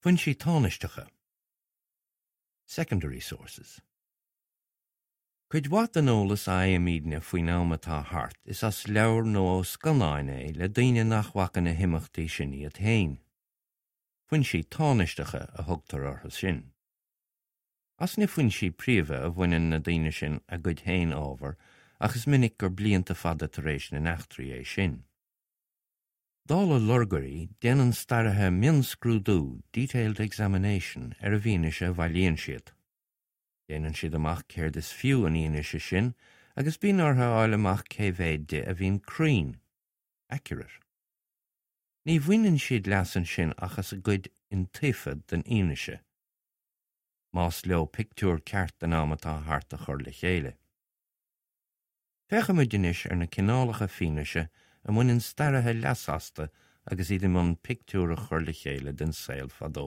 Foinsí tánaisteacha, Secondary sources. Cuid mhaith den eolas a fhaighimidne faoin am atá thart is as leabhair nó ó scannáin é le daoine nach bhfaca na himeachtaí sin iad féin. Foinsí tánaisteacha a thugtar orthu sin. As na foinsí príomha a bhaineann na daoine sin a gcuid féin ábhair ach is minic gur blianta fada tar éis na n-eachtraí é sin. Dála lorgairí, déanann staraithe mionscrúdú, detailed examination, ar an bhfianaise a bhailíonn siad. Déanann siad amach céard is fiú an fhianaise sin agus bíonn orthu a fháil amach cé mhéad di a bhíonn cruinn, accurate. Ní bhaineann siad leas ansin ach as an gcuid iontaofa den fhianaise, más leo pictiúr ceart den am atá thart a chur le chéile. Féachfaimid anois ar na cineálacha fianaise a mbaineann staraithe leas astu agus iad i mbun pictiúr a chur le chéile den saol fadó.